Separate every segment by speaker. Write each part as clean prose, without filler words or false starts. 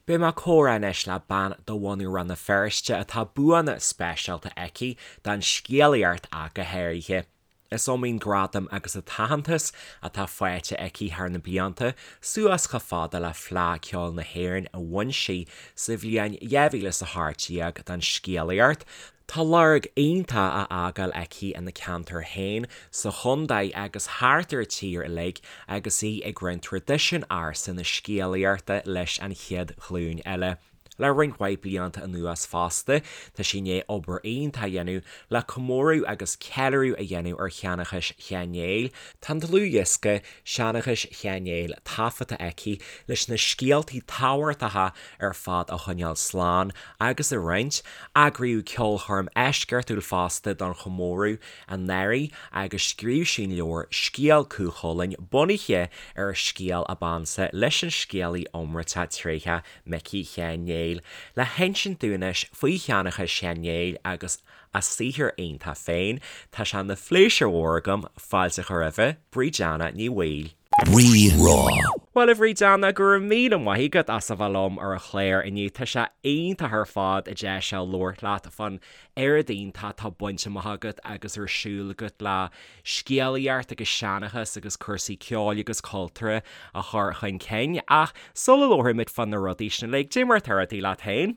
Speaker 1: Beidh mé ag comhrá anois le bean de bhunadh Rann na Feirste atá buanna speisialta aici don scéalaíocht ach go háirithe. Is iomaí an gradam agus an t-aitheantas atá faighte aici thar na blianta, suas chomh fada le Fleadh Ceoil na hÉireann a bhain sí sa bhliain 2018 don scéalaíocht. Tá lorg iontach á fhágáil aici ina ceantar féin, sa chontae agus thart ar an tír uilig agus í ag roinnt traidisiún ársa na scéalaíochta leis an chéad ghlúin eile. Le roinnt mhaith blianta anuas fosta, tá sí i ndiaidh obair iontach a dhéanamh le comóradh agus ceiliúradh a dhéanamh ar sheanchas Sheáin Néill. Tá an dlúthdhiosca Seanchas Sheáin Néill taifeadta aici leis na scéaltaí tábhachtacha ar fad a choinneáil slán agus a roinnt. Eagraíodh ceolchoirm eisceachtúil fosta don chomóradh anuraidh agus scríobh sí an leabhar Scéal Cú Chulainn bunaithe ar a scéal ab ansa leis an scéalaí iomráiteach tréitheach Micí Sheáin Néill. Le hinsint dúinn anois faoi sheanchas Sheáin Néill agus a saothar iontach féin, tá sé ina phléisiúr mhór agam fáilte a chur roimhe, Bríd Anna Ní Bhaoill.
Speaker 2: Rí-Rá.
Speaker 1: Bhuel, a Bhríd Anna, go raibh míle maith agat as a bheith liom ar an chlár inniu. Tá sé iontach ar fad an deis seo labhairt leat fán oiread iontach atá bainte amach agat agus ar siúl agat le scéalaíocht agus seanchas agus cúrsaí ceoil agus cultúrtha a chur chun cinn. Ach sula labhraímid fá na rudaí sin uilig, cad é mar atá rudaí leat féin?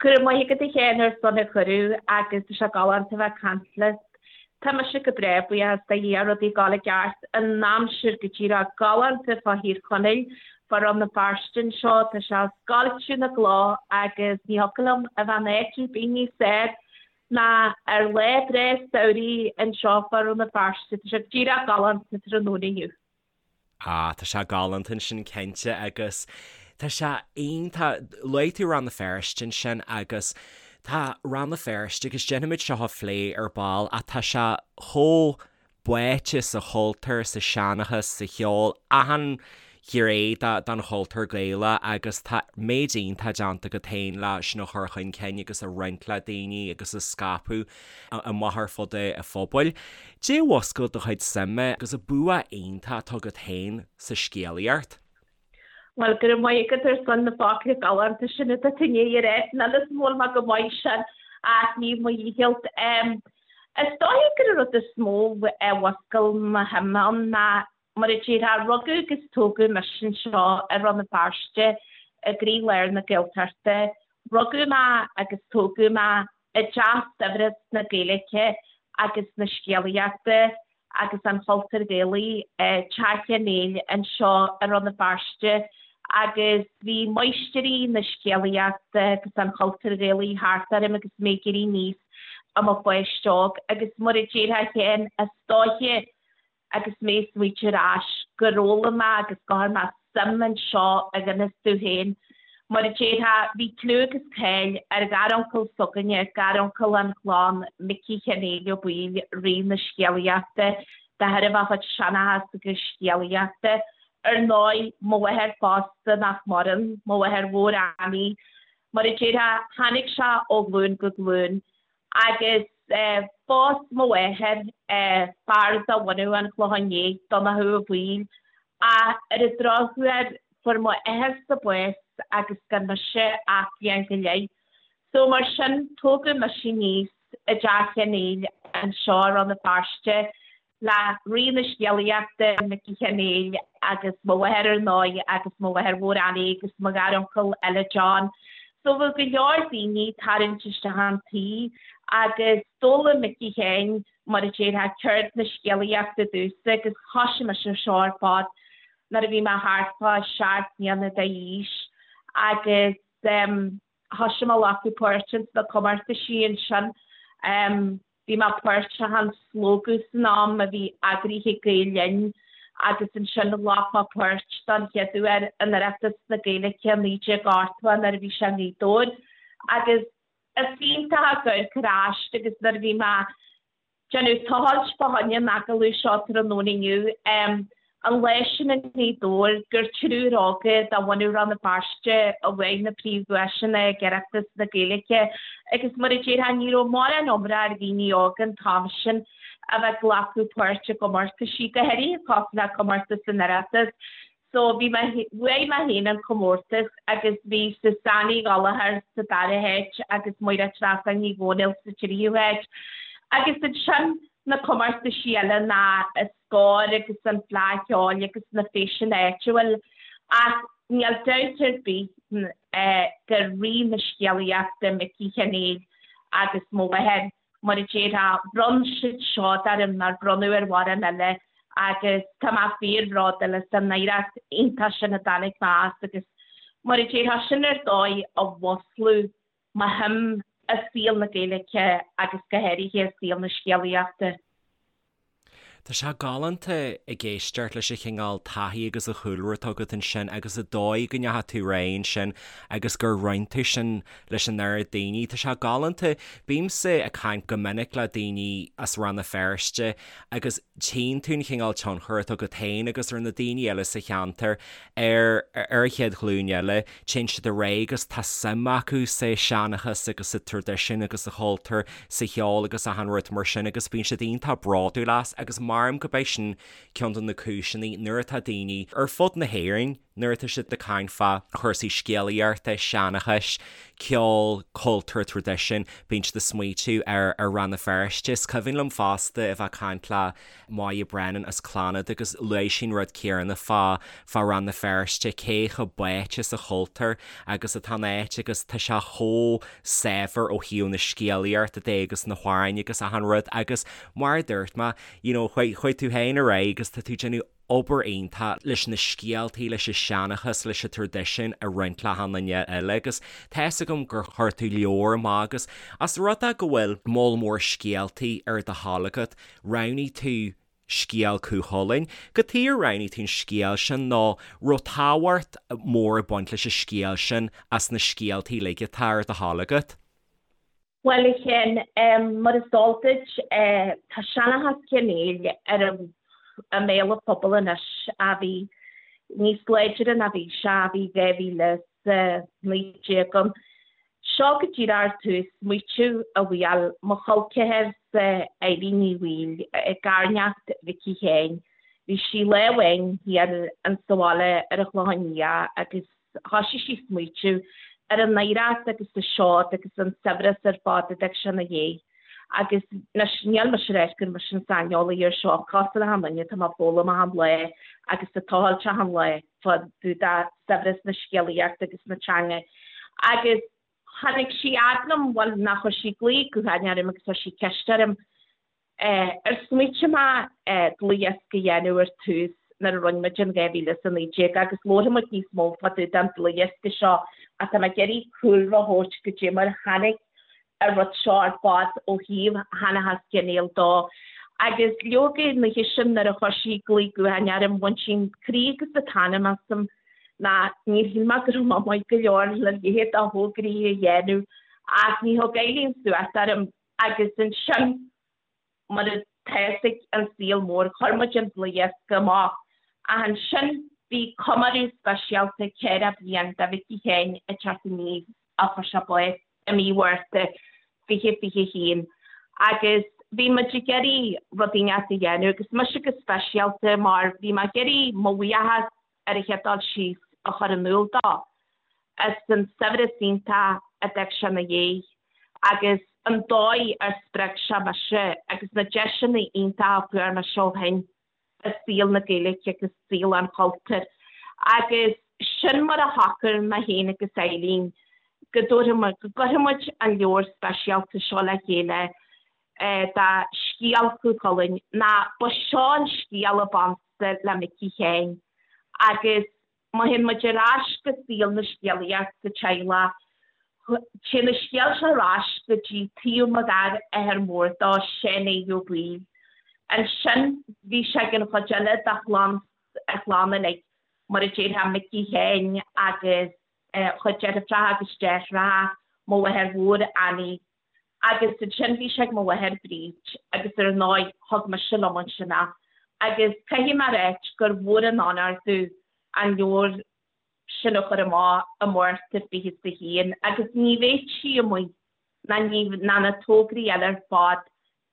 Speaker 3: Go raibh maith agat a Sheáin ar son an chuireadh agus tá sé galánta a bheith ag caint leat. Tá mise go breá, buíochas do Dhia, rudaí ag gabháil i gceart, an aimsir go díreach galánta fá Thír Chonaill, fá Rann na Feirste anseo, tá sé ag scoilteadh na gcloch agus ní thiocfadh liom a bheith in áit ar bith níos fearr ná ar lá breá samhraidh anseo fá Rann na Feirste, tá sé díreach galánta tráthnóna inniu.
Speaker 1: Ah, tá sé galánta ansin cinnte agus tá sé iontach, luaigh tú Rann na Feirste ansin agus tá Rann na Feirste agus déanfaimid seo a phlé ar ball ach tá sé chomh báite sa chultúr, sa seanchas, sa cheol, achan ghné den chultúr Gaelach agus tá méid iontach déanta agat féin le sin a chur chun cinn agus a roinnt le daoine agus a scaipeadh amach ar fud an phobail. Cad é a mhúscail do chuid suime agus an bua iontach atá agat féin sa scéalaíocht?
Speaker 3: Bhuel, go raibh maith agat ar son na focla galánta sin atá tú i ndiaidh a rá. Níl 'fhios a'm an bhfuil mé go maith sin ach ní mo dhícheall. Is dóiche gur an rud is mó a mhúscail mo shuim ann ná, mar a déarfá, rugadh agus tógadh mise anseo i Rann na Feirste i gcroílár na Gaeltachta. Rugadh mé agus tógadh mé i dteach saibhreas na Gaeilge agus na scéalaíochta agus an chultúir Ghaelaigh, Teach Uí Néill anseo i Rann na Feirste agus bhí máistirí na scéalaíochta agus an chultúir Ghaelaigh thart orm agus mé ag éirí aníos i mo pháiste óg agus mar a déarfá féin, is dóiche agus mé ag smaoitiú ar ais, gur fhoghlaim mé agus gur chuir mé suim anseo i ngan fhios domh féin. Mar a déarfá, bhí clú agus cáil ar gharuncail s'againne, garuncail an chlann, Micí Sheáin Néill Ó Baoill, Rí na Scéalaíochta, de thairbhe a chuid seanchas agus scéalaíochta. Ar ndóigh, mo mháthair fosta nach maireann, mo mháthair mhór Annie. Mar a déarfá, tháinig sé ó ghlúin go glúin. Agus phós mo mháthair fear de bhunadh an Chlocháin Léith, Donnchadh Ó Baoill, ach ar an drochuair fuair mo athairse bás agus gan mise ach bliain go leith. So mar sin, tógadh mise aníos i dTeach Uí Néill anseo i Rann na Feirste le Rí na Scéalaíochta, Micí Sheáin Néill, agus mo mháthair ar ndóigh agus mo mháthair mhór Annie agus mo gharuncail eile John. So bheadh go leor daoine ag tarraingt isteach an tí agus d'fhoghlaim Micí Sheáin, mar a déarfá, ceird na scéalaíochta domhsa agus thoisigh mise ar seo ar fad nuair a bhí mé thart fá sheacht mbliana d'aois agus thoisigh mé a ghlacadh páirt ins na comórtaisí ansin. Bhí mé páirteach in Slógadh san am a bhí eagraithe ag Gael Linn agus ansin ghlac mé páirt don chéad uair in Oireachtas na Gaeilge 1980 nuair a bhí sé i nGaoth Dobhair agus is iontach ag amharc ar ais agus nuair a bhí mé déanamh tochailt fá choinne an agallaimh seo tráthnóna inniu. An lá sin i nGaoth Dobhair gur triúr óga de bhunadh Rann na Feirste a bhuaigh na príomhdhuaiseanna ag Oireachtas na Gaeilge agus mar a déarfá ní raibh mórán iomrá ar dhaoine óga an t-am sin a bheith ag glacadh páirt i gcomórtaisí, go háirithe cosúil le comórtas an Oireachtais. So bhí mé, bhuaigh mé féin an comórtas agus bhí Suzanne Uí Ghallchóir sa dara háit agus Máire Treasa Ní Dhomhnaill sa tríú háit. Agus ansin na comórtaisí eile ná Scór agus an Fleadh Cheoil agus na feiseanna áitiúil ach níl dabht ar bith gur rí na scéalaíochta Micí Sheáin Néill agus mo mháthair, mar a déarfá, bhronn siad seod orm nár bronnadh ar mhórán eile agus tá mé fíorbhródúil as an oidhreacht iontach sin a dtáinig mé as agus mar a déarfá, sin ar dóigh a mhúsclaigh mo shuim i saol na Gaeilge agus go háirithe i saol na scéalaíochta.
Speaker 1: Tá sé galánta ag éisteacht leis an chineál taithí agus an chúlra atá agat ansin agus an dóigh go ndeachaigh tú ar aghaidh ansin agus gur roinn tú sin leis an oiread daoine. Tá sé galánta. Bímse ag caint go minic le daoine as Rann na Feirste agus tchíonn tú an chineál tionchar atá agat féin agus ar na daoine eile sa cheantar ar ar an chéad ghlúin eile. Téann siad ar aghaidh agus tá suim acu sa seanchas agus sa traidisiún agus sa chultúr, sa cheol agus achan rud mar sin agus bíonn siad iontach bródúil as agus maram gurb é sin ceann de na cúiseanna nuair atá daoine ar fud na hÉireann, nuair atá siad ag caint fá chúrsaí scéalaíochta, seanchais, ceol, cultúr, traidisiún, bíonn siad ag smaoitiú ar ar Rann na Feirste. Is cuimhin liom fosta a bheith ag caint le Moya Brennan as Clannad agus luaigh sí an rud céanna fá fá Rann na Feirste, cé chomh báite sa chultúr agus atá an áit agus tá sé chomh saibhir ó thaobh na scéalaíochta de agus na hamhráin agus achan rud agus mar a dúirt mé, you know, chuaigh chuaigh tú féin ar aghaidh agus tá tú ag déanamh obair iontach leis na scéaltaí, leis an seanchas, leis an traidisiún a roinnt le achan duine eile agus tá fhios agam gur chuir tú leabhar amach agus as rud é go bhfuil moll mór scéaltaí ar do thoil agat, roghnaigh tú scéal Cú Chulainn. Cad chuige ar roghnaigh tú an scéal sin nó raibh tábhacht mór ag baint leis an scéal sin as na scéaltaí uilig atá ar do thoil agat?
Speaker 3: Bhuel, a Sheáin, mar is eol duit, tá seanchas Uí Néill ar i mbéal an phobail anois a bhí níos láidre ná bhí sé a bhí 2019 ann. Seo go díreach ar tús smaoitiú a bhuail mo chol ceathar-sa Eilín Ní Bhaoill, garneacht Mhicí Sheáin. Bhí sí lá amháin thiar insa bhaile ar an Chlochán Liath agus thoisigh sí smaoitiú ar an oidhreacht agus an seod agus an saibhreas ar fad a d'fhág sé ina dhiaidh. Agus anois níl mise ag ráit gur mise an saineolaí ar seo, cosúil le achan duine tá mé ag foghlaim achan lá agus ag tochailt achan lá fá dtaobh de saibhreas na scéalaíochta agus na teanga. Agus tháinig sí fhad liom, bhuel ná chuir sí glao gutháin orm agus chuir sí ceist orm Ar smaoitigh mé dlúthdhiosca a dhéanamh ar tús nuair a rinne muid in 2019 agus labharfaidh muid níos mó fá dtaobh den dlúthdhiosca seo ach tá mé ag iarraidh cúlra a thabhairt goidé mar a tháinig an rud seo ar fad ó thaobh sheanchas Uí Néill dó. Agus leoga an oíche sin nuair a chuir sí glao gutháin orm bhain sí an croí agus an t-anam asam ná níor shíl mé go raibh mé maith go leor le leithéid de thograí a dhéanamh ach ní thug Eileen suas orm. Agus ansin, mar atá fhios ag an saol mór, chuir muid an dlúthdhiosca amach. Ach ansin, bhí comóradh speisialta 40 bliain de Mhicí Sheáin ag teacht aníos a fuair sé bás i mí Mhárta 2021. Agus bhí muid ag iarraidh rud inteacht a dhéanamh, agus mise go speisialta, mar bhí mé ag iarraidh mo bhuíochas ar an chéad dul síos a chur in iúl dó as an saibhreas iontach a d'fhág sé ina dhiaidh agus an dóigh ar spreag sé mise agus na deiseanna iontacha a fuair mise ó shin i saol na Gaeilge agus saol an chultúir. Agus sin mar a shocair mé féin agus Eileen go dtabharfadh muid, go gcuirfeadh muid an leabhar speisialta seo le chéile de scéal Chú Chulainn ná ba seo an scéal ab ansa le Micí Sheáin agus má théann muid ar ais go saol na scéalaíochta sa teaghlach, téann an scéal seo ar ais go dtí taobh mo gharmháthar mór dó, Seán Aodh Ó Baoill. Ansin bhí sé ag an chuid eile de chlann, a chlann uilig, mar a déarfá Micí Sheáin agus a chuid deirfiúracha agus deartháireacha, mo mháthair mhór Annie Agus ansin bhí sé ag mo mháthair Bríd agus ar ndóigh thug mise liom ansin é. Agus caithfidh mé a ráit gur mhór an onóir domh an leabhar sin a chur amach i Márta 21 agus ní bheadh sí amuigh ná ní ná na tograí eile ar fad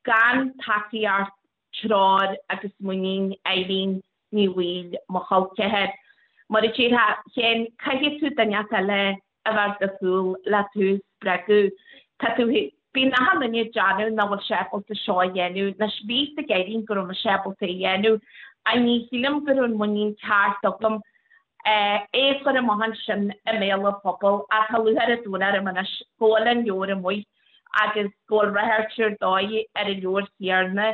Speaker 3: gan tacaíocht treoir agus muinín Eileen Ní Bhaoill, mo chol ceathar. Mar a déarfá féin, caithfidh tú duine eile a bheith ar do chúl le tú a spreagadh. Tá tú, bíonn achan duine ag déanamh nach bhfuil sé ábalta seo a dhéanamh. Anois, bhí fhios ag Eileen go raibh mise ábalta é a dhéanamh ach ní shílim go raibh an muinín ceart agam é a chur amach ansin i mbéal an phobail ach tá lúcháir an domhain orm anois go bhfuil an leabhar amuigh agus go bhfuil ráchairt ar dóigh ar an leabhar chéarna.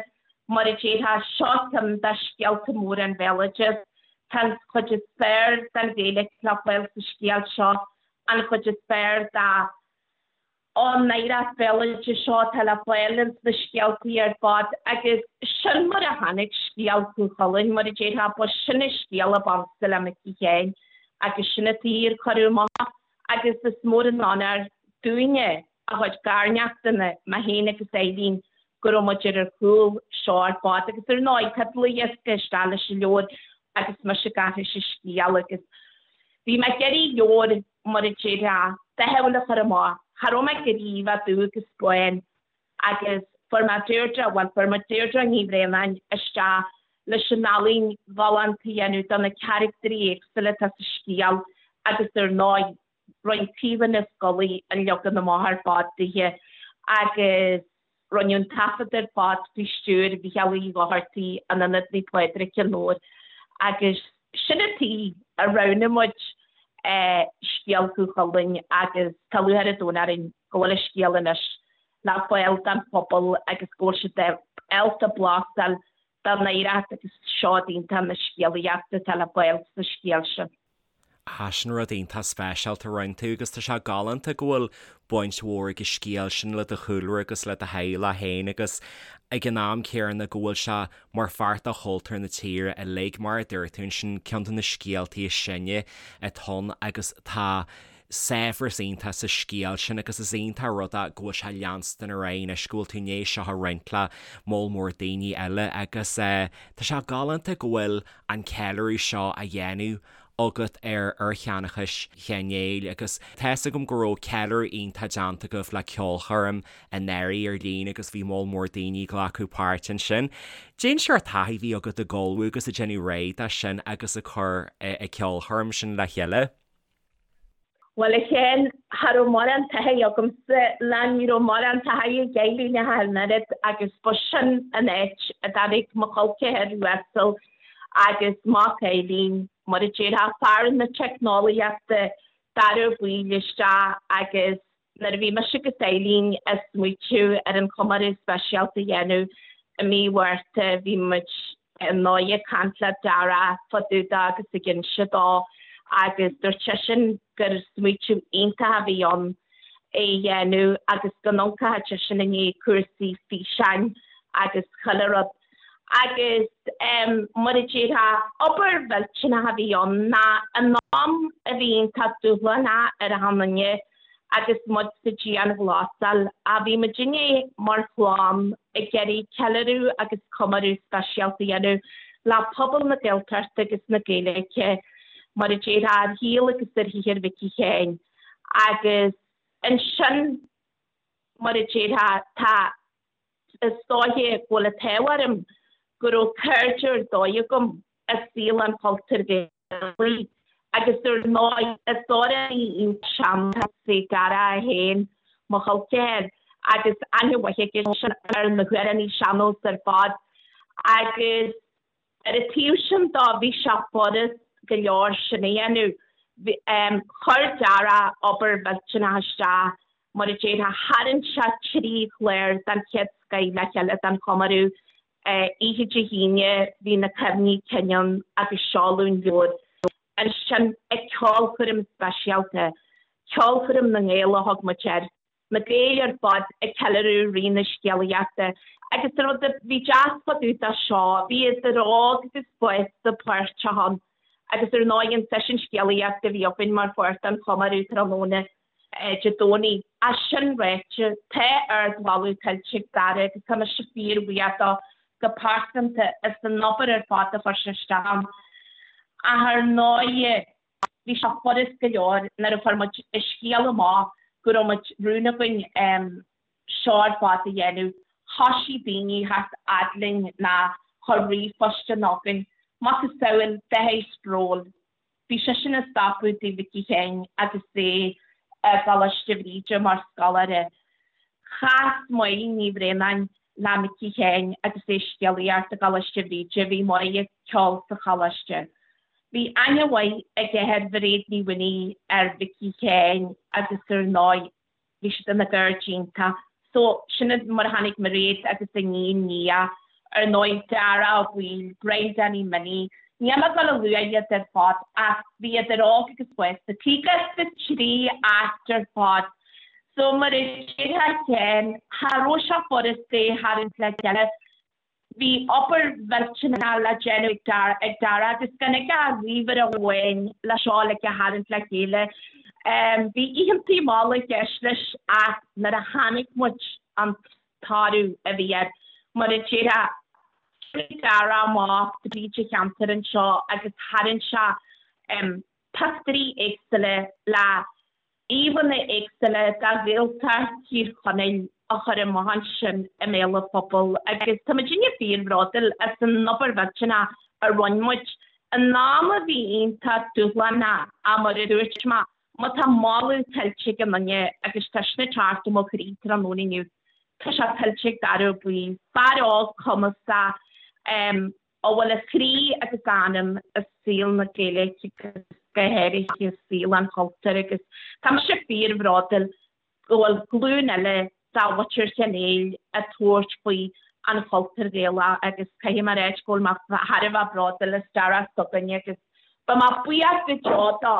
Speaker 3: Mar a déarfá, seo ceann de scéalta móra an bhéaloidis. Tá an chuid is fearr den Ghaeilge le fáil sa scéal seo, an chuid is fearr de an oidhreacht bhéaloidis seo atá le fáil ins na scéaltaí ar fad agus sin mar a tháinig scéal Chú Chulainn, mar a déarfá, ba sin an scéal ab ansa le Micí Sheáin agus sin an tuige ar cuireadh amach agus is mór an onóir dúinne, a chuid garneachtanna, mé féin agus Eileen, go raibh muid ar ar chúl seo ar fad agus ar ndóigh tá dlúthdhiosca isteach leis an leabhar agus mise ag aithris an scéal agus bhí mé ag iarraidh leabhar mar a déarfá dathúil a chur amach, cha raibh mé ag iarraidh a bheith dubh agus bán agus fuair mé Deirdre, bhuel fuair muid Deirdre Ní Bhraonáin isteach leis an ealaín ghalánta a dhéanamh do na caractairí éagsúla atá sa scéal agus ar ndóigh Rinne Caoimhe Ní Scolaí an leagan amach ar fad dithe agus rinneadh an taifead ar fad faoi stiúir Mhícheáil Uí Dhochartaigh in Ionad Naomh Pádraig, Cionn Óir agus sin an tuige a roghnaigh muid scéal Chú Chulainn agus tá lúcháir an domhain orainn go bhfuil an scéal anois le fáil don phobal agus go bhfuil siad ábalta blas a fháil den oidhreacht agus seod iontach na scéalaíochta atá le fáil sa scéal sin.
Speaker 1: Ah, sin rud iontach speisialta a rinne tú agus tá sé galánta go bhfuil baint mhór ag an scéal sin le do chúlra agus le do theaghlach féin agus ag an am céanna go bhfuil sé mar pháirt de chultúr na tíre uilig, mar a dúirt tú ansin, ceann de na scéaltaí is sine atá ann agus tá saibhreas iontach sa scéal sin agus is iontach an rud é go bhfuil sé ag leanstan ar aghaidh anois, go bhfuil tú i ndiaidh seo a roinnt le moll mór daoine eile agus tá sé galánta go bhfuil an ceiliúradh seo á dhéanamh agat ar ar sheanchas Sheáin Néill agus tá fhios agam go raibh ceiliúradh iontach déanta agaibh le ceolchoirm anuraidh ar líne agus bhí moll mór daoine ag glacadh páirt ansin. Cén seort taithí a bhí agat ag ullmhú agus ag déanamh réidh dó sin agus ag cur an ceolchoirm sin le chéile?
Speaker 3: Bhuel, a Sheáin, cha raibh mórán taithí agamsa, ná ní raibh mórán taithí ag Eileen ach an oiread agus ba sin an áit a dtáinig mo chol ceathar uasal agus mac Eileen, mar a déarfá, fear na teicneolaíochta, Dara Ó Baoill isteach agus Nuair a bhí mise agus Eileen ag smaoitiú ar an chomóradh speisialta a dhéanamh i mí Mhárta bhí muid ar ndóigh ag caint le Dara fá dtaobh de agus ag inse dó agus dúirt seisean gur smaoitiú iontach a bhí ann é a dhéanamh agus go n-amharcfadh seisean i ndiaidh cúrsaí físeáin agus chuile rud. Agus mar a déarfá, obair mhillteanach a bhí ann ná in am a bhí iontach dúshlánach ar achan duine agus muid sa dianghlasáil, ach bhí muidinne mar chlann ag iarraidh ceiliúradh agus comóradh speisialta a dhéanamh le pobal na Gaeltachta agus na Gaeilge, mar a déarfá, ar shaol agus ar shaothar Mhicí Sheáin. Agus ansin, mar a déarfá, tá. Is dóiche go bhfuil an t-ádh orm go raibh cairde ar dóigh agam i saol an chultúir Ghaelaigh agus ar ndóigh is amhránaí iontach sean-nóis é Dara é féin, mo chol ceathar, agus aithne mhaith aige ar na hamhránaithe sean-nós ar fad agus Ar an taobh sin dó, bhí sé furast go leor sin a dhéanamh. Chuir Dara obair mhillteanach isteach, mar a déarfá, tharraing sé 3 chlár den chéad scoith le chéile don chomóradh. Oíche Dé hAoine bhí na cuimhní cinn ann agus seoladh an leabhair. Ansin ag ceolchoirm speisialta, Ceolchoirm na nGael a thug muid air, na Gaeil ar fad ag ceiliúradh Rí na Scéalaíochta agus an rud a bhí deas fá dtaobh de seo, bhí idir óg agus fásta páirteach ann agus ar ndóigh an seisiún scéalaíochta a bhí againn mar pháirt den chomóradh tráthnóna Dé Domhnaigh. Ach sin ráite, tá ardmholadh tuillte ag Dara agus tá mise fíorbhuíoch dó go pearsanta as an obair ar fad a chuir sé isteach ann. Ach ar ndóigh, Bhí sé furast go leor nuair a chuir muid an scéal amach go raibh muid rún againn seo ar fad a dhéanamh. Thoisigh daoine a theacht fhad linn ná chuir ríomhphostanna chugainn, macasamhail dath spraiúil. Bhí seisean ag stopadh tigh Mhicí Sheáin agus é i gColáiste Bhríde mar scoláire. Chas Máire Ní Bhraonáin le Micí Sheáin agus é ag scéalaíocht i gColáiste Bhríde. Bhí Máire ag ceol sa choláiste. Bhí aithne mhaith aige ar Mhairéad Ní Mhaonaigh, ar Mhicí Sheáin agus ar ndóigh bhí siad ina gcairde iontach. So, sin mar a tháinig Mairéad agus a iníon Nia, ar ndóigh Dara Ó Baoill, Brian Danny Minnie, níl mé ag dul a lua iad ar fad ach bhí idir óg agus fásta, 53 áit ar fad. So mar a déarfá féin, cha raibh sé furasta é a tharraingt le chéile. Bhí obair mhillteanach le déanamh ag Dara agus gan aige ach ríomhaire amháin le seo uilig a tharraingt le chéile. Bhí oícheantaí malla i gceist leis ach nuair a chonaic muid an toradh a bhí air, mar a déarfá, chuaigh Dara amach tríd an cheantar anseo agus tharraing sé pictiúirí éagsúla le íomhánna éagsúla de Ghaeltacht Thír Chonaill a chur amach ansin i mbéal an phobail agus tá muidinne fíorbhródúil as an obair mhillteanach a rinne muid in am a bhí iontach dúshlánach ach mar a dúirt mé, má tá moladh tuillte ag aon duine agus tá sin ag teacht ó mo chroí tráthnóna inniu, tá sé tuillte ag Dara Ó Baoill, fear óg cumasach, a bhfuil a chroí agus a anam i saol na Gaeilge agus go háirithe i saol an chultúir agus tá mise fíorbhródúil go bhfuil glúin eile de mhuintir Sheáin Néill ag tabhairt faoi an chultúr Ghaelach agus caithfidh mé a ráit go bhfuil mé thar a bheith bródúil as Dara s'againne agus beidh mé buíoch go deo dó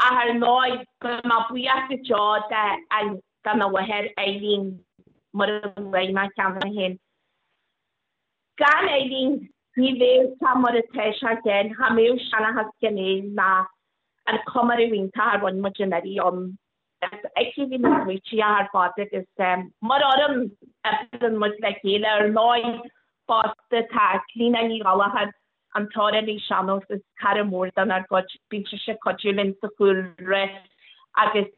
Speaker 3: ach ar ndóigh beidh mé buíoch go deo dona mháthair Eileen mar a luaigh mé cheana féin. Gan Eileen ní bheadh sé mar atá sé féin, cha mbeadh Seanchas Sheáin Néill ná an comóradh iontach a rinne muid anuraidh ann. Is aici a bhí na smaoití ar fad agus mar fhoireann oibríonn muid le chéile. Ar ndóigh fosta tá Clíona Ní Ghallchóir, an t-amhránaí sean-nós is cara mór dár gcuid, bíonn sise ag cuidiú linn sa chúlra agus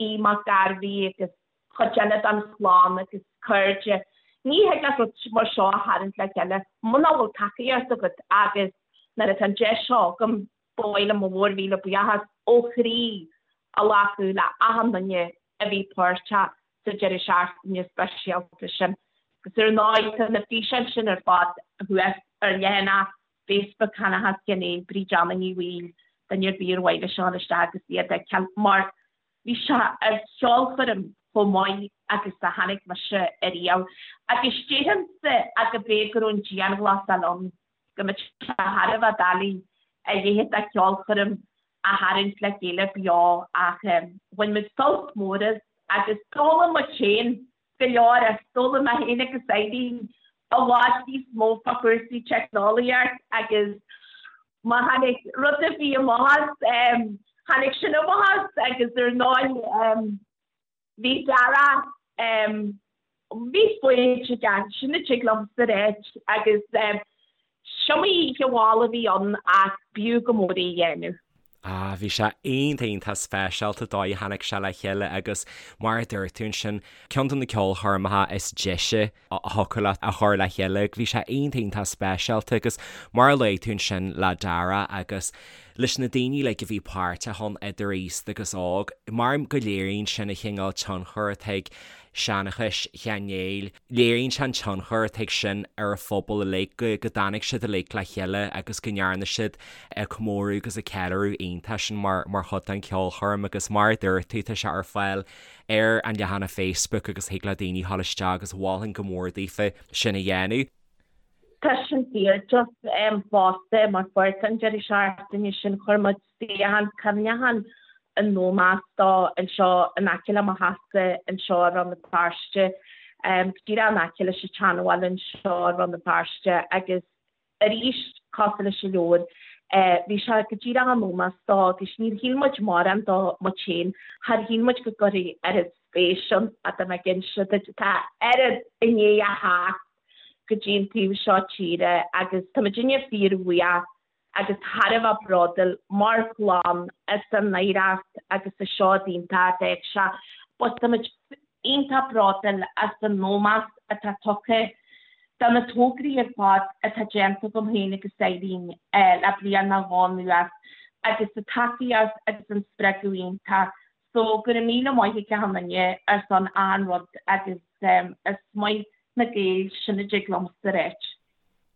Speaker 3: Aodh Mac Gairbhí agus cuid eile den chlann agus cairde. Ní thig leat rud mar seo a tharraingt le chéile muna bhfuil tacaíocht agat agus nuair atá an deis seo agam, ba mhaith liom mo mhórmhíle buíochas ó chroí a ghlacadh le achan duine a bhí páirteach sa deireadh seachtaine speisialta sin. Agus ar ndóigh tá na físeáin sin ar fad thuas ar leathanach Facebook Sheanchas Sheáin Néill, Bríd Anna Ní Bhaoill, duine ar bith ar mhaith leis a dhul isteach agus iad a fheiceáil mar Bhí sé ar cheolchoirm chomh maith agus a chonaic mise ariamh agus déarfainnse go b'fhéidir go raibh an dianghlasáil ann, go mbeadh sé thar a bheith doiligh a leithéid de cheolchoirm a tharraingt le chéile beo ach bhain muid sult mór as agus d'fhoghlaim muid féin go leor as. D'fhoghlaim mé féin agus Eileen i bhfad níos mó fá chúrsaí teicneolaíocht agus má tháinig rud ar bith amach as, tháinig sin amach as agus ar ndóigh bhí Dara, bhí foighid aige, sin a dtig liomsa a ráit agus 'sciomaí oíche mhall a bhí ann ach b'fhiú go mór é a dhéanamh.
Speaker 1: Ah, bhí sé iontach iontach speisialta an dóigh a tháinig sé le chéile agus mar a dúirt tú ansin, ceann de na ceolchoirmeacha is deise a thiocfadh leat a chur le chéile. Bhí sé iontach iontach speisialta agus mar a luaigh tú ansin le Dara agus leis na daoine uilig a bhí páirteach ann idir aosta agus óg, mar go léiríonn sin an chineál tionchair atá ag Seanchas Sheáin Néill. Léiríonn sé an tionchar atá ag sin ar an phobal uilig, go dtáinig siad uilig le chéile agus go ndearna siad comóradh agus an ceiliúradh iontach sin mar chuid den cheolchoirm agus mar a dúirt tú, tá sé ar fáil ar an leathanach Facebook agus thig le daoine dhul isteach agus mholfainn go mór daofa sin a dhéanamh.
Speaker 3: Tá sin fíor, just fosta mar pháirt den deireadh seachtaine sin chuir muid suíochán cuimhneacháin in ómós dó anseo in aice le mo theachsa anseo i Rann na Feirste, go díreach in aice leis an tSeanbhaile anseo i Rann na Feirste agus arís cosúil leis an leabhar bhí sé go díreach in ómós dó agus níor shíl muid mórán dó muid féin, char shíl muid go gcuirfí oiread spéis ann ach tá mé ag inse duit tá oiread i ndiaidh a theacht go dtí an taobh seo tíre agus tá muidinne fíorbhuíoch agus thar a bheith bródúil mar chlann as an oidhreacht agus an seod iontach a d'fhág sé. But tá muid iontach bródúil as an ómós atá tugtha do na tograí ar fad atá déanta agam féin agus Eileen le bliain nó dhó anuas. Agus an tacaíocht agus an spreagadh iontach. So go raibh míle maith ag achan duine ar son achan rud agus is maith na Gaeil sin a dtig liomsa a ráit.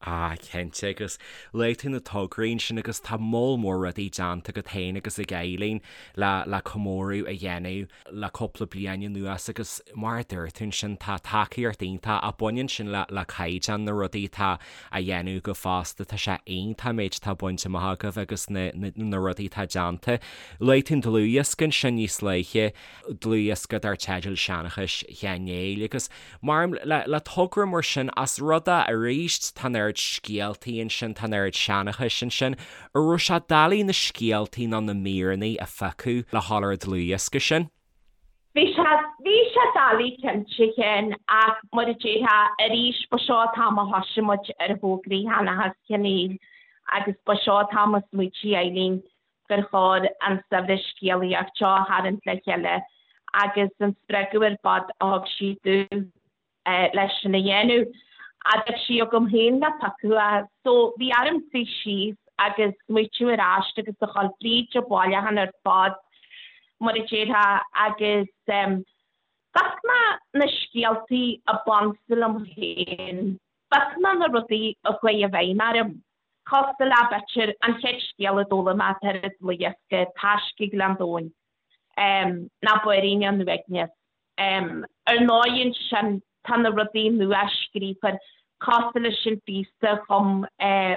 Speaker 1: Ah, cinnte, agus luaigh tú na tograí ansin agus tá moll mór rudaí déanta agat féin agus ag Eileen le le comóradh a dhéanamh le cúpla bliain anuas agus mar a dúirt tú ansin tá tacaíocht iontach ach baineann sin le le caighdeán na rudaí atá á dhéanamh agaibh fosta, tá sé iontach an méid atá bainte amach agaibh agus na na na rudaí atá déanta. Luaigh tú an dlúthdhiosca ansin níos luaithe, dlúthdhiosca dar teideal Seanchas Sheáin Néill agus Mar le togra mar sin, as rud é arís, tá an oiread scéaltaí ansin, tá an oiread seanchais ansin, an raibh sé doiligh na scéaltaí nó na míreanna a phiocadh le dhul ar an dlúthdhiosca sin?
Speaker 3: Bhí sé, bhí sé doiligh cinnte, a Sheáin, ach mar a déarfá, arís, ba seo an t-am a thoisigh muid ar thograí Sheanchas Sheáin Néill agus ba seo an t-am a smaoitigh Eileen gur chóir an saibhreas scéalaíocht seo a tharraingt le chéile agus an spreagadh ar fad a thug sí domh leis sin a dhéanamh. Ach bhí sí agam féin le piocadh é. So bhí orm suí síos agus smaoitiú ar ais agus a dhul fríd an bhailiúchán ar fad, mar a déarfá, agus phioc mé na scéaltaí a b'ansa liom féin, phioc mé na rudaí a chuaigh i bhfeidhm orm. Cosúil le, b'fhéidir, an chéad scéal a d'fhoghlaim mé atá ar an dlúthdhiosca, Taisce Ghleann Domhain, ná Báirín an Uaigneas. Ar ndóigh ansin tá na rudaí nua scríofa cosúil leis an phíosa a chum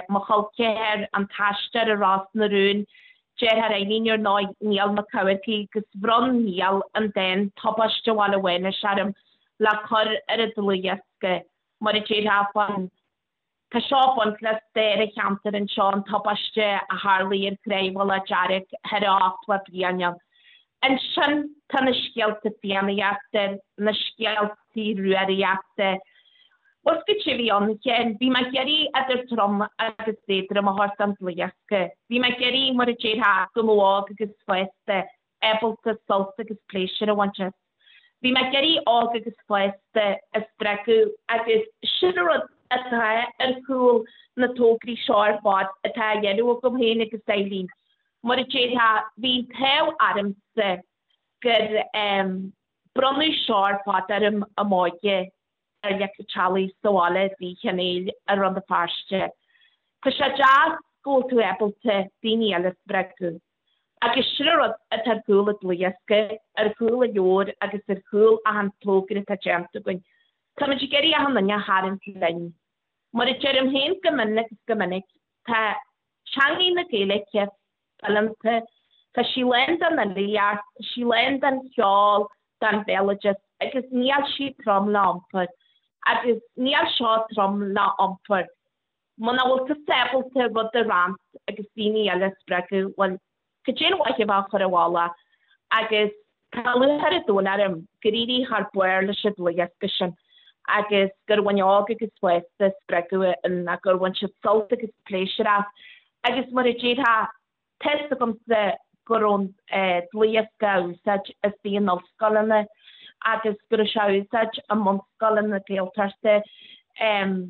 Speaker 3: mo chol ceathar, An tAistear i Ros na Rún, deartháir Eileen ar ndóigh, Niall Mac Eamharcaigh, agus bhronn Niall an dán Tubaiste Bhaile Mhánais orm le cur ar an dlúthdhiosca, mar a déarfá fán Tá seo ag baint le stair an cheantair anseo, an tubaiste a tharlaigh ar Chraobh Mhullach Dearg thoir a 80 bliain ann. Ansin tá na scéalta Fiannaíochta, na scéaltaí Rúraíochta. Bhuel, goidé a bhí ann, a Sheáin? Bhí mé ag iarraidh idir trom agus éadrom a thabhairt don dlúthdhiosca. Bhí mé ag iarraidh, mar a déarfá, go mbeadh óg agus fásta ábalta sult agus pléisiúr a bhaint as. Bhí mé ag iarraidh óg agus fásta a spreagadh agus sin an rud atá ar chúl na tograí seo ar fad atá á dhéanamh agam féin agus Eileen. Mar a déarfá, bhí an t-ádh ormsa gur bronnadh seo ar fad orm i m'óige. ar leic an teallaigh sa bhaile i dTír Chonaill i Rann na Feirste. Tá sé deas go bhfuil tú ábalta daoine eile a spreagadh. Agus sin an rud atá ar chúl an dlúthdhiosca, ar chúl an leabhair agus ar chúl achan togra atá déanta againn. Táimid ag iarraidh achan duine a tharraingt linn. Mar a deirim féin go mion agus go minic, tá teangaidh na Gaeilge fileanta, tá sí lán den fhilíocht, tá sí lán den cheol, den bhéaloideas agus níl sí trom le iompar. Agus níl seo trom le iompar. Muna bhfuil tusa ábalta rud a roinnt agus daoine eile a spreagadh, bhuel, cad é an mhaith a bheith á chur i bhfolach? Agus tá lúcháir an domhain orm gur éirigh thar barr leis an dlúthdhiosca sin agus gur bhain óg agus fásta spreagadh ann gur bhain siad sult agus pléisiúr as. Agus mar a déarfá, tá's agamsa go raibh an dlúthdhiosca á úsáid istigh in ollscoileanna agus go raibh sé á úsáid i mbunscoileanna Gaeltachta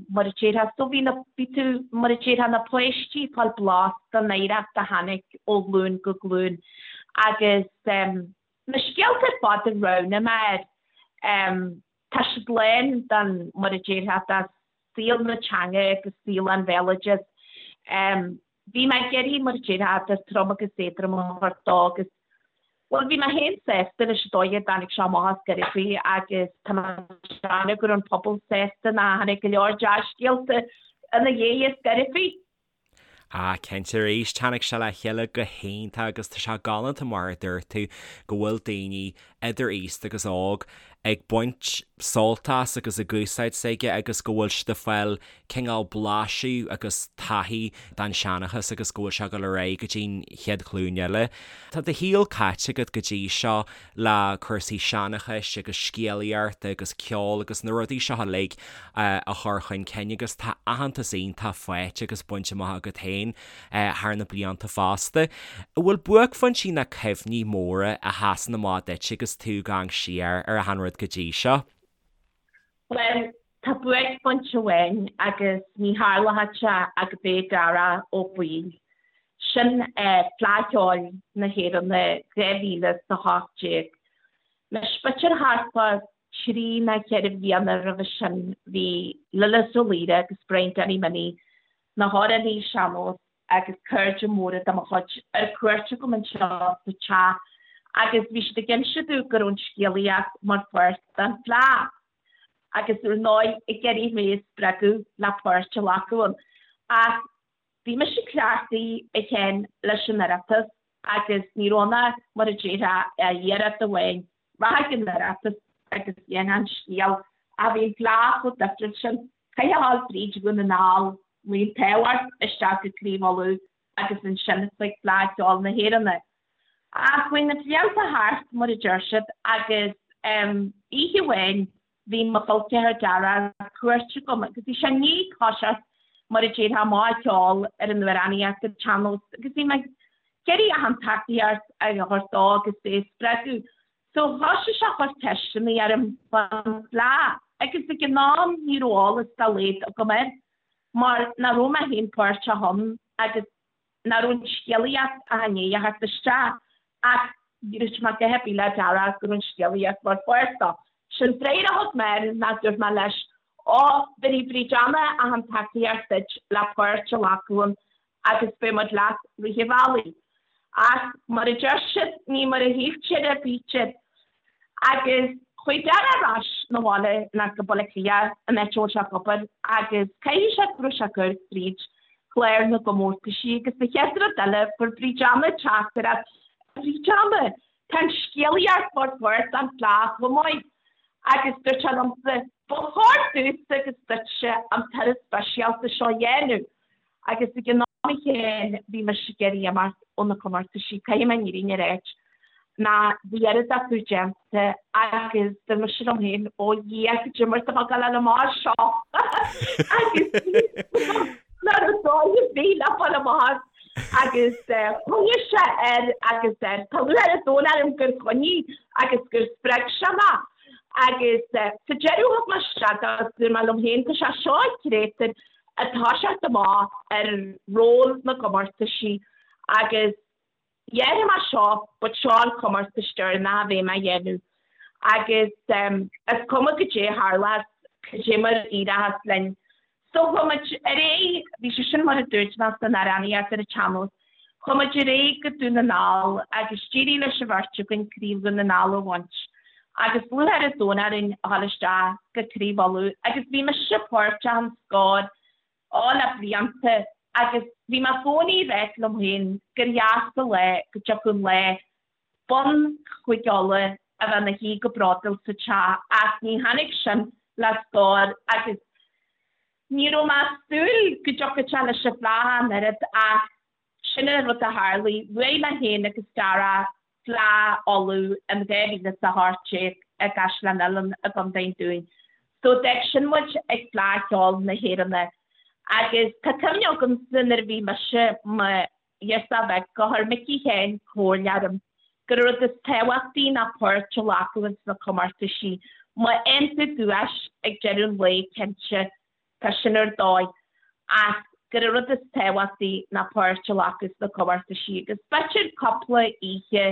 Speaker 3: mar a déarfá. So bhí na, bhí tú, mar a déarfá, na páistí ag fáil blas den oidhreacht a tháinig ó ghlúin go glúin agus na scéalta ar fad a roghnaigh mé air, tá siad lán den, mar a déarfá, de saol na teanga agus saol an bhéaloidis. Bhí mé ag iarraidh, mar a déarfá, idir trom agus éadrom a thabhairt dó agus, bhuel, bhí mé féin sásta leis an dóigh a dtáinig sé amach as Gairifí agus tá mé ag déanamh go raibh an pobal sásta nó tháinig go leor dea-scéalta ina dhiaidh as Gairifí.
Speaker 1: Ah, cinnte arís, tháinig sé le chéile go hiontach agus tá sé galánta mar a dúirt tú go bhfuil daoine idir aosta agus óg ag baint sult as agus ag úsáid s'aige agus go bhfuil siad ag fáil cineál blaiseadh agus taithí den seanchas agus go bhfuil sé ag dul ar aghaidh go dtí'n chéad ghlúin eile. Tá do shaol caite agat go dtí seo le cúrsaí seanchais agus scéalaíochta agus ceol agus na rudaí seo uilig a chur chun cinn agus tá aitheantas iontach faighte agus bainte amach agat féin thar na blianta fosta. An bhfuil buaicphointí ná cuimhní móra a sheasann amach duit agus tú ag amharc siar ar achan rud go dtí seo?
Speaker 3: Bhuel, tá buaicphointe amháin agus ní tharlódh sé ach gurb é Darach Ó Baoill. Sin Fleadh Cheoil na hÉireann 2018. Anois, b'fhéidir thart fá thrí nó cheithre bhliana roimhe sin bhí Lillis Ó Laoire agus Brian Danny Minnie, na hamhránaí sean-nós agus cairde móra de mo chuid, ar cuairt agam anseo sa teach agus bhí siad ag inse domh go raibh an scéalaíocht mar pháirt den Fleadh agus ar ndóigh ag iarraidh mé a spreagadh le páirt a ghlacadh ann. Ach bhí mise cleachtaithe a Sheáin leis an Oireachtas agus ní raibh ann ach, mar a déarfá, iarracht amháin, rachainn ag an Oireachtas agus dhéanfainn an scéal ach bhí an Fleadh chomh difriúil sin, chaithfeá a ghabháil fríd Dhún na nGall, luí an t-ádh ort, isteach go Craobh Uladh agus ansin chuig Fleadh Cheoil na hÉireann. Ach chuaigh na blianta thart, mar a deir siad, agus oíche amháin bhí mo chol ceathar Dara ar cuairt agam agus bhí sé i ndiaidh toiseacht mar a déarfá amach ag ceol ar an amhránaíocht ar an tsean-nós agus bhí mé ag iarraidh achan tacaíocht a thabhairt dó agus é a spreagadh. So thoisigh sé a chur ceisteanna orm fán Fhleadh agus ag an am ní raibh eolas dá laghad agam air mar nach raibh mé féin páirteach ann agus nach raibh an scéalaíocht ach i ndiaidh a theacht isteach ach dúirt mé a dhath ar bith le Dara go raibh an scéalaíocht mar pháirt dó. Sé'n freagra a thug mé air ná dúirt mé leis, Ó, bhéarfaidh Bríd Anna achan tacaíocht duit le páirt a ghlacadh ann agus beidh muid leat rith an bhealaigh. Ach mar a deir siad, ní mar a shíltear a bítear. Agus chuaigh Dara ar ais 'na bhaile ná go Baile Átha Cliath, an áit a bhfuil sé ag obair, agus caithfidh sé go raibh sé ag cur fríd chlár na gcomórtaisí agus an chéad rud eile fuair Bríd Anna teachtaireacht, A Bhríd Anna, tá an scéalaíocht mar pháirt den Fhleadh chomh maith. Agus dúirt sé liomsa, ba chóir domhsa agus duitse an turas speisialta seo a dhéanamh. Agus ag an am chéanna bhí mise ag iarraidh imeacht ó na comórtaisí, caithfidh mé an fhírinne a ráit, ná bhí oiread acu déanta agus dúirt mise liom féin, ó Dhia, cad é mar tá mé ag gabháil amach as seo agus nach raibh dóigh ar bith le fáil amach as agus choinnigh sé air agus air. Tá lúcháir an domhain orm gur choinnigh agus gur spreag sé mé agus sa deireadh thug mé isteach agus dúirt mé liom féin, tá sé seo an créatúr ag toiseacht amach ar ról na gcomórtaisí agus dhéanfaidh mé seo but seo an comórtas deireanach a bheidh mé a dhéanamh agus is cuma goidé a tharlós, goidé mar a éireochas linn. So chuaigh muid ar aghaidh, bhí sé sin mar a dúirt mé san amhránaíocht ar an tsean-nós, chuaigh muid ar aghaidh go Dún na nGall agus d'éirigh leis an bheirt againn Craobh Dhún na nGall a bhaint agus lúcháir an domhain orainn a dhul isteach go Craobh Uladh agus bhí mise páirteach in Scór ó le blianta agus bhí mé i gcónaí ag ráit liom féin gur dheas an lá go dtiocfadh an lá bonn Chúige Uladh a bheith ina shuí go bródúil sa teach ach ní tháinig sin le Scór agus ní raibh mé ag súil go dtiocfadh sé leis an Fhleadh an oiread ach Sin an rud a tharlaigh. Bhuaigh mé féin agus Dara Fleadh Uladh in 2018 i gCaisleán Uidhilín i gContae an Dúin. So d'fhág sin muid ag Fleadh Cheoil na hÉireann. Agus tá cuimhne agamsa nuair a bhí mise mo ghirseach bheag gur chuir Micí Sheáin comhairle orm gur an rud is tábhachtaí ná páirt a ghlacadh ins na comórtaisí. Má fhaigheann tú duais ag deireadh an lae cinnte Tá sin ar dóigh, ach gur an rud is tábhachtaí ná páirt a ghlacadh sna comórtaisí agus b'fhéidir cúpla oíche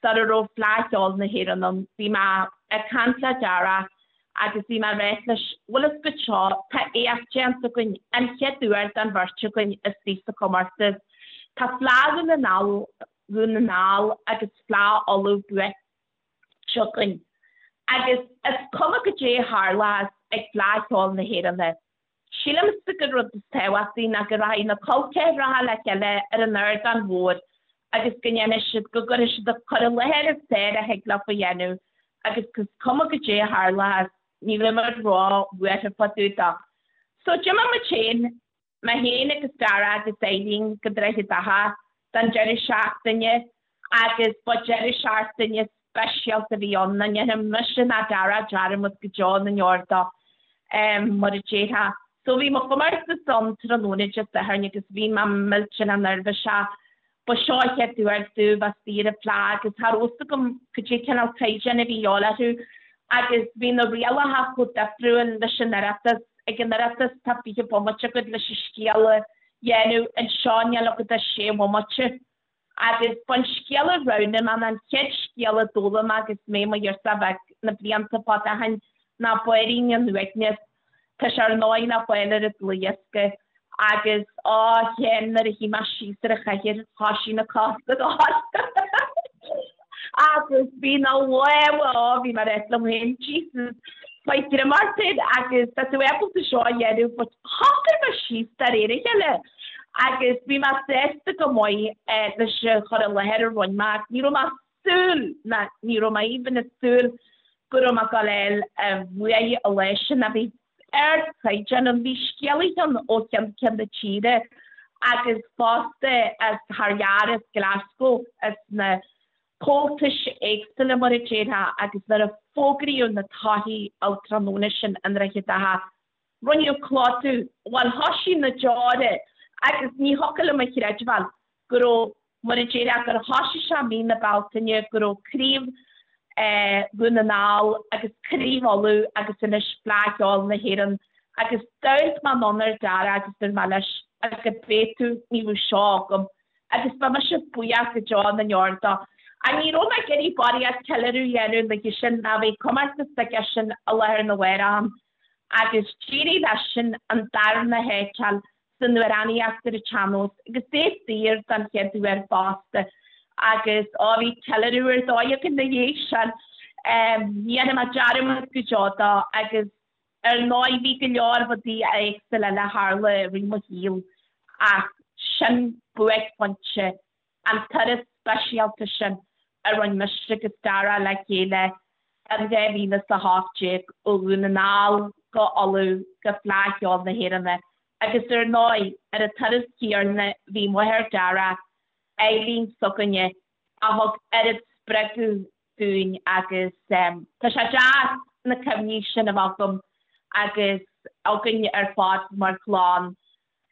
Speaker 3: sara raibh Fleadh Cheoil na hÉireann ann, bhí mé ag caint le Dara agus bhí mé ag ráit leis, bhfuil fhios agat seo, tá éacht déanta againn, an chéad uair don bheirt againn istigh sa chomórtas. Tá Fleadh Dhún na nGall, Dhún na nGall agus Fleadh Uladh buaite. againn. Agus is cuma goidé a tharlós ag Fleadh Cheoil na hÉireann. Sílimse gur rud is tábhachtaí ná go rachaidh na col ceathracha le chéile ar an ardán mhór agus go ndéanfaidh siad, go gcuirfidh siad an cur i láthair is fearr a thig leo a dhéanamh agus is cuma goidé a tharlós, ní bheidh muid ró-bhuartha fá dtaobh dó. So d'imigh muid féin Mé féin agus Dara agus Eileen go Droichead Átha don deireadh seachtaine agus ba deireadh seachtaine speisialta a bhí ann, nach ndéanfaidh mise ná Dara dearmad go deo na ndeor dó, mar a déarfá. So bhí mo chomórtas ann tráthnóna Dé Sathairn agus bhí mé millteanach neirbhíseach. Ba seo an chéad uair domh bheith istigh ar an bhFleadh agus cha raibh fhios agam cad é cineál caighdeán a bhí a dhíobháil orthu agus bhí na rialacha chomh difriúil leis an Oireachtas. Ag an Oireachtas tá 20 bomaite agat leis an scéal a. dhéanamh anseo níl agat ach sé bhomaite. Agus b'an scéal a roghnaigh mé ná an chéad scéal a d'fhoghlaim mé agus mé i mo ghirseach bheag na blianta fada ó shin ná Báirín an Uaigneas. Tá sé ar ndóigh le fáil ar an dlúthdhiosca agus á Sheáin nuair a shuigh mé síos ar an chathaoir thoisigh na cosa ag gol agus bhí na lámha á bhí mé ag rá liom féin Jesus faigh greim ort féin agus tá tú ábalta seo a dhéanamh but shocair mé síos de réir a chéile agus bhí mé sásta go maith leis an chur i láthair a rinne mé ach ní raibh mé súil ná ní raibh mé even ag súil go raibh mé ag gabháil a fháil an bhuaidh an lá sin a bhí ardchaighdeán ann. Bhí scéalaithe ann ó cheann ceann na tíre agus fosta as thar lear, as Glasgow, as na comhaltais éagsúla mar a déarfá agus nuair a fógraíodh na torthaí an tráthnóna sin i nDroichead Átha, rinneadh clódú, bhuel thoisigh na deora agus ní thiocfadh liom a chreidbheáil go raibh, mar a déarfá, gur thoisigh sé mí na Bealtaine, go raibh Craobh Dhún na nGall agus Craobh Uladh agus anois Fleadh Cheoil na hÉireann agus d'amharc mé anonn ar Dara agus dúirt mé leis, agus cibé tú, ní bheadh seo agam agus beidh mise buíoch go deo na ndeor dó. Ach ní raibh mé ag iarraidh barraíocht ceiliúradh a dhéanamh an oíche sin ná bhí comórtas aige sin i láthair na mhárach ann agus d'éirigh leisean an darna háit a fháil san amhránaíocht ar an tsean-nós agus é saor don chéad uair fosta agus á bhí ceiliúradh ar dóigh againn ina dhiaidh sin. Ní dhéanfaidh mé dearmad go deo dó agus ar ndóigh bhí go leor rudaí éagsúla eile a tharla i rith mo shaoil ach sin buaicphointe an turas speisialta sin a rinne mise agus Dara le chéile in 2018 ó Dhún na nGall go Ulaidh go Fleadh Cheoil na hÉireann agus ar ndóigh ar an turas céanna bhí máthair Dara, Eileen s'againne, a thug oiread spreagadh dúinn agus tá sé deas na cuimhní sin a bheith agam agus againn ar fad mar chlann.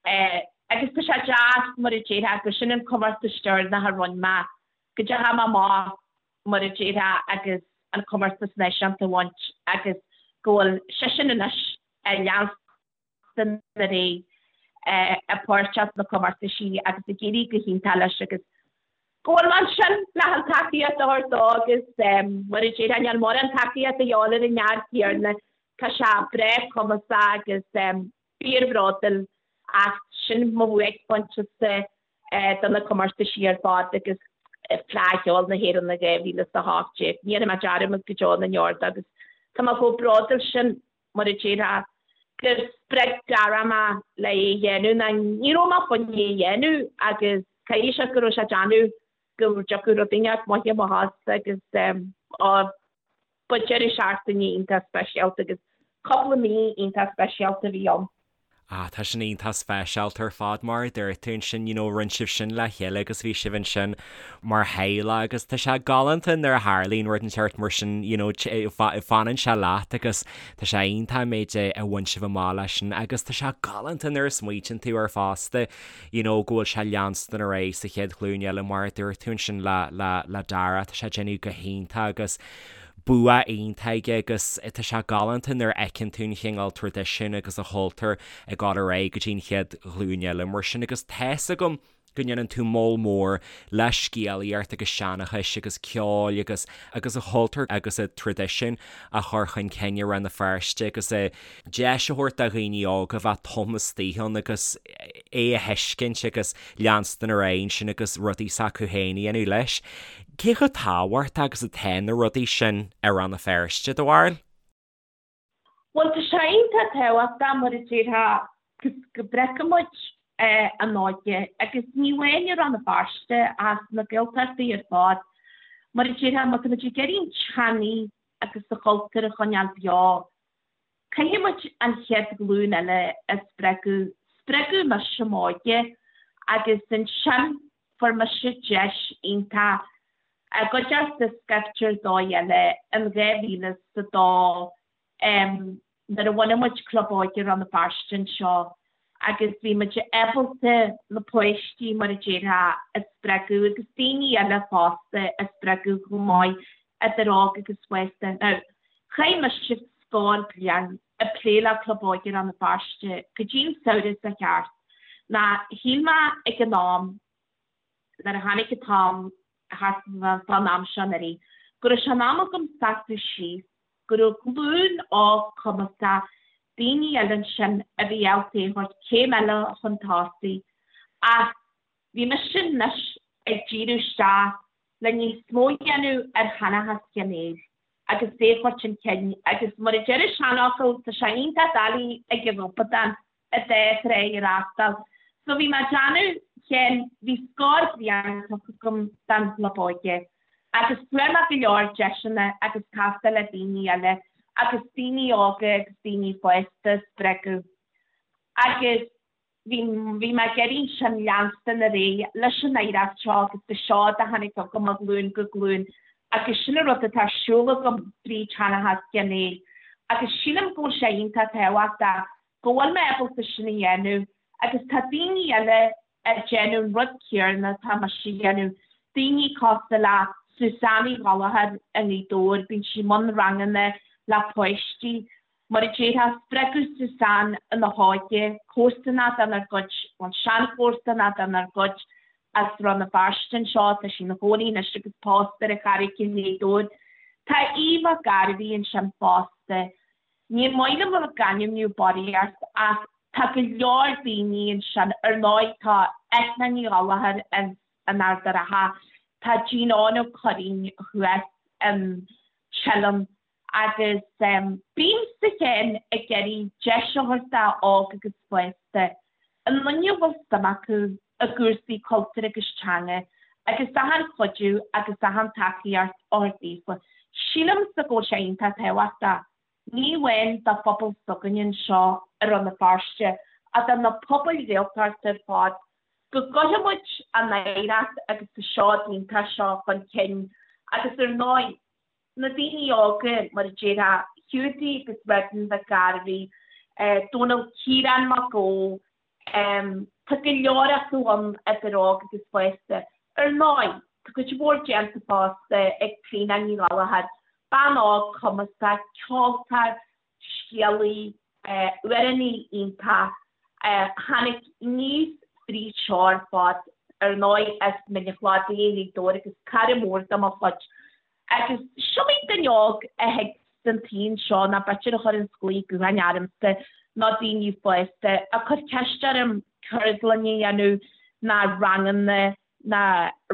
Speaker 3: Agus tá sé deas, mar a déarfá, gur sin an comórtas deireanach a rinne mé, go dteachaigh mé amach, mar a déarfá, agus an comórtas náisiúnta a bhaint agus go bhfuil seisean anois ag leanstan ar aghaidh ag páirteach sna comórtaisí agus ag éirí go hiontach leis agus go bhfuil mé ansin le an tacaíocht a thabhairt dó agus mar a déarfá, níl mórán tacaíocht a dhíobháil ar an fhear céanna, tá sé breá cumasach agus fíorbhródúil ach sin mo bhuaicphointe-sa do na comórtaisí ar fad agus Fleadh Cheoil na hÉireann i 2018. Ní dhéanfaidh mé dearmad go deo na ndeor de agus tá mé chomh bródúil sin mar a déarfá gur spreag Dara mé le é a dhéanamh ná ní raibh mé chun é a dhéanamh agus caithfidh sé go raibh sé ag déanamh go dtiocfadh rud inteacht maith amach as agus á Ba deireadh seachtaine iontach speisialta agus cúpla mí iontach speisialta a bhí ann.
Speaker 1: Ah, tá sin iontach speisialta ar fad, mar a dúirt tú ansin, you know, rinne sibh sin le chéile agus bhí sibh ansin mar theaghlach agus tá sé galánta nuair a tharlaíonn rud inteacht mar sin, you know, fanann sé leat agus tá sé iontach an méid a bhain sibh amach leis sin agus tá sé galánta nuair a smaoitíonn tú air fosta, you know, go bhfuil sé leanstan ar aghaidh sa chéad ghlúin eile mar a dúirt tú ansin le, le, le Dara, tá sé ag déanamh go hiontach agus bua iontach aige agus tá sé galánta nuair a fheiceann tú an chineál traidisiún agus an chultúr ag dul ar aghaidh go dtí an chéad ghlúin eile mar sin agus tá's agam go ndéanann tú moll mór le scéalaíocht agus seanchais agus ceoil agus agus an chultúr agus an traidisiún a chur chun cinn i Rann na Feirste agus a deis a thabhairt do dhaoine óga bheith taobh istigh ann agus é a thuiscint agus leanstan ar aghaidh ansin agus rudaí s'acu féin a dhéanamh leis. Cé chomh tábhachtach agus atá na rudaí sin i Rann na Feirste, do bharúil?
Speaker 3: Bhuel, tá sé iontach tábhachtach, mar a déarfá, go bhfeiceann muid an óige, agus ní amháin i Rann na Feirste ach sna Gaeltachtaí ar fad. Mar a déarfá, má tá muid ag iarraidh an teangaidh agus an chultúr a choinneáil beo, Caithfidh muid an chéad ghlúin eile a spreagadh. Spreagadh mise m'óige agus ansin fuair mise deis iontach i gcuideachta scaifte ar dóigh eile in 2002 nuair a bhunaigh muid Club Óige Rann na Feirste anseo agus bhí muid ábalta na páistí, mar a déarfá, a spreagadh agus daoine eile fosta a spreagadh chomh maith, idir óg agus fásta. Now, chaith mise scór bliain ag plé le Club Óige Rann na Feirste go dtí an samhradh seo thart. Ná shíl mé ag an am, nuair a tháinig an t-am thart fán am seo anuraidh, go raibh sé in am agam seasamh síos, go raibh glúin óg cumasach, daoine eile ansin a bhí ábalta é a thabhairt céim eile chun tosaigh. Ach bhí mise anois ag díriú isteach le níos mó a dhéanamh ar sheanchas Sheáin Néill agus é a chur chun cinn agus mar a deir an seanfhocal, tá sé iontach doiligh ag an ghobadán an dá thrá a fhreastal. So bhí mé ag déanamh, Sheáin, bhí scór bliain tugtha agam don Chlub Óige agus fuair mé go leor deiseanna agus castáil le daoine eile agus daoine óga agus daoine fásta a spreagadh agus Bhí, bhí mé ag iarraidh ansin leanstan ar aghaidh leis an oidhreacht seo agus an seod a tháinig agam ó ghlúin go glúin agus sin an rud atá ar siúl agam fríd Sheanchas Sheáin Néill agus sílim go bhfuil sé iontach tábhachtach go bhfuil mé ábalta sin a dhéanamh agus tá daoine eile ag déanamh an rud céarna atá mise a dhéanamh, daoine cosúil le Suzanne Uí Ghallchóir i nGaoth Dobhair, bíonn sí i mbun ranganna le páistí Mar a déarfá, spreagadh Suzanne ina hóige, comharsanach denár gcuid, bhuel, seanchomharsanach denár gcuid as Rann na Feirste anseo, tá sí ina chónaí anois agus pósta ar an Charraig i nGaoth Dobhair. Tá Aodh Mac Gairbhí ansin fosta. Ní maith liom a bheith ag ainmniú barraíocht ach tá go leor daoine ansin, ar ndóigh tá Eithne Ní Ghallchóir ins an Ard a' Rátha, tá Gene Eoin Ó Curraoin thuas in Teileann, Agus bímse féin ag iarraidh deis a thabhairt do óg agus fásta, aon duine a bhfuil suim acu i gcúrsaí cultúir agus teanga agus achan chuidiú agus achan tacaíocht a thabhairt daofa. Sílimse go bhfuil sé iontach tábhachtach, ní amháin do phobal s'againne anseo i Rann na Feirste ach do na pobail Ghaeltachta ar fad, go gcuirfidh muid an oidhreacht agus an seod iontach seo chun cinn agus ar ndóigh, na daoine óga, mar a déarfá, Hiúdaí agus Redmond Mhic Gairbhí, Dónal Ciarán Mac Ó, tá go leor acu ann idir óg agus fásta. Ar ndóigh, tá cuid mhór déanta fosta ag Clíona Ní Ghallchóir, bean óg cumasach, ceoltóir, scéalaí, amhránaí iontach. Tháinig aníos fríd seo ar fad, ar ndóigh, as Mín an Chladaigh i nGaoth Dobhair agus cara mór de mo chuid. Agus is iomaí duine óg a thig san tsaol seo nó b'fhéidir a chuireanns glao gutháin ormsa nó daoine fásta ag cur ceist orm ceardlann a dhéanamh nó ranganna nó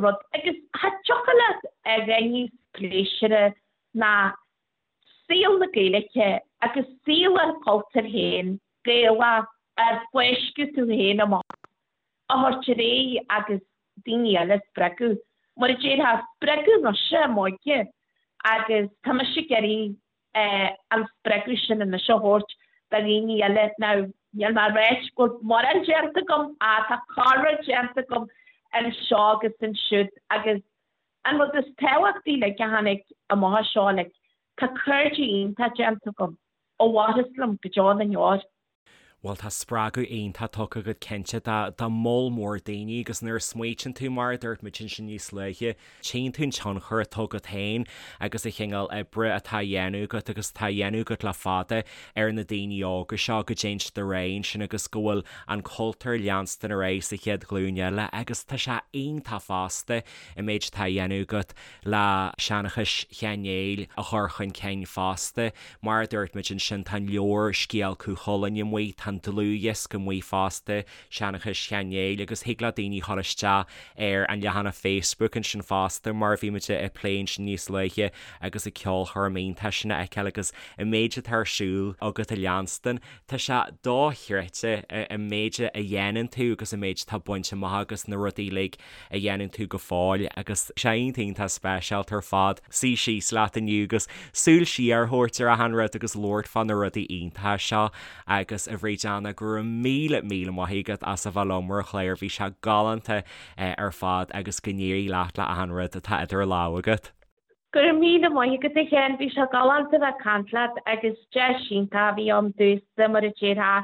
Speaker 3: rud agus cha dtiocfadh leat a dhath níos pléisiúrtha ná saol na Gaeilge agus saol ár gcultúir féin, Gaelach, ar fáisceadh tú féin amach a thabhairt ar aghaidh agus daoine eile a spreagadh. Mar a déarfá, spreagadh mise i m'óige agus tá mise ag iarraidh an spreagadh sin anois a thabhairt do dhaoine eile. Now, níl mé ag ráit go bhfuil mórán déanta agam ach tá corr déanta agam anseo agus ansiúd agus an rud is tábhachtaí like a tháinig amach as seo like tá cairde iontach déanta agam a mhairfeas liom go deo na ndeor.
Speaker 1: Bhuel, tá spreagadh iontach tugtha agat cinnte do mholl mór daoine agus nuair a smaoitíonn tú, mar a dúirt muid ansin níos luaithe, tchíonn tú an tionchar atá agat féin agus an chineál oibre atá á dhéanamh agat agus atá á dhéanamh agat le fada ar na daoine óga seo go dtéann siad ar aghaidh ansin agus go bhfuil an cultúr ag leanstan ar aghaidh sa chéad ghlúin eile agus tá sé iontach fosta an méid atá á dhéanamh agat le seanchas Sheáin Néill a chur chun cinn fosta. Mar a dúirt muid ansin, tá an leabhar Scéal Cú Chulainn amuigh, tá an dlúthdhiosca amuigh fosta, Seanchas Sheáin Néill, agus thig le daoine dhul isteach ar an leathanach Facebook ansin fosta, mar a bhí muid ag plé ansin níos luaithe, agus an ceolchoirm iontach sin a fheiceáil agus an méid atá ar siúl agat a leanstan. Tá sé dochreidte an méid a dhéanann tú agus an méid atá bainte amach agus na rudaí uilig a dhéanann tú go fóill agus sé iontach iontach speisialta ar fad suí síos leat inniu agus súil siar a thabhairt ar achan rud agus labhairt fá na rudaí iontacha seo agus a Bhríd Anna go raibh míle míle maith agat as a bheith liom ar an chlár bhí sé galánta ar fad agus go n-éirí leat le achan rud atá idir lámha agat.
Speaker 3: Go raibh míle maith agat a Sheáin, bhí sé galánta bheith ag caint leat agus deis iontach a bhí ann domhsa mar a déarfá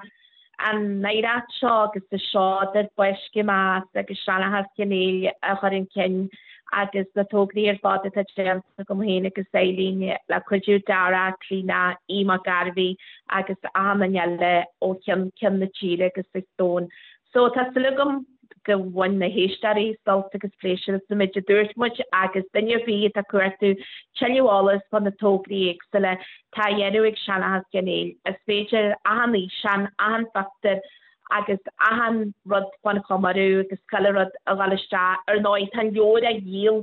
Speaker 3: an oidhreacht seo agus an seod ar fáisceadh mé as agus seanchas Sheáin Néill a chur chun cinn agus na tograí ar fad atá déanta agam féin agus Eileen le cuidiú Dara, Clíona, Aodh Mac Gairbhí agus achan duine eile ó cheann ceann na tíre agus an domhain. So tá súil agam go bhain na héisteoirí sult agus pléisiúr as an méid a dúirt muid agus duine ar bith atá ag cuartú tuilleadh eolas fá na tograí éagsúla atá á dhéanamh ag Seanchas Cheann Fhaola, is féidir achan fhíseán, achan phictiúr agus achan rud fán chomóradh agus chuile rud a dhul isteach. Ar ndóigh tá an leabhar á dhíol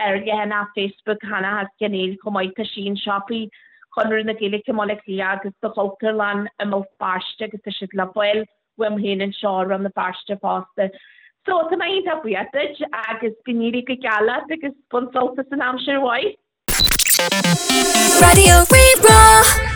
Speaker 3: ar leathanach Facebook Sheanchas Cheann Fhaola chomh maith, tá sí in siopaí Chonradh na Gaeilge i mBaile Átha Cliath agus sa Chultúrlann i mBéal Feirste agus tá siad le fáil uaim féin anseo i Rann na Feirste fosta. So, tá mé iontach buíoch duit agus go n-éirí go geal leat agus bain sult as an aimsir mhaith.
Speaker 2: Raidió Rí-Rá.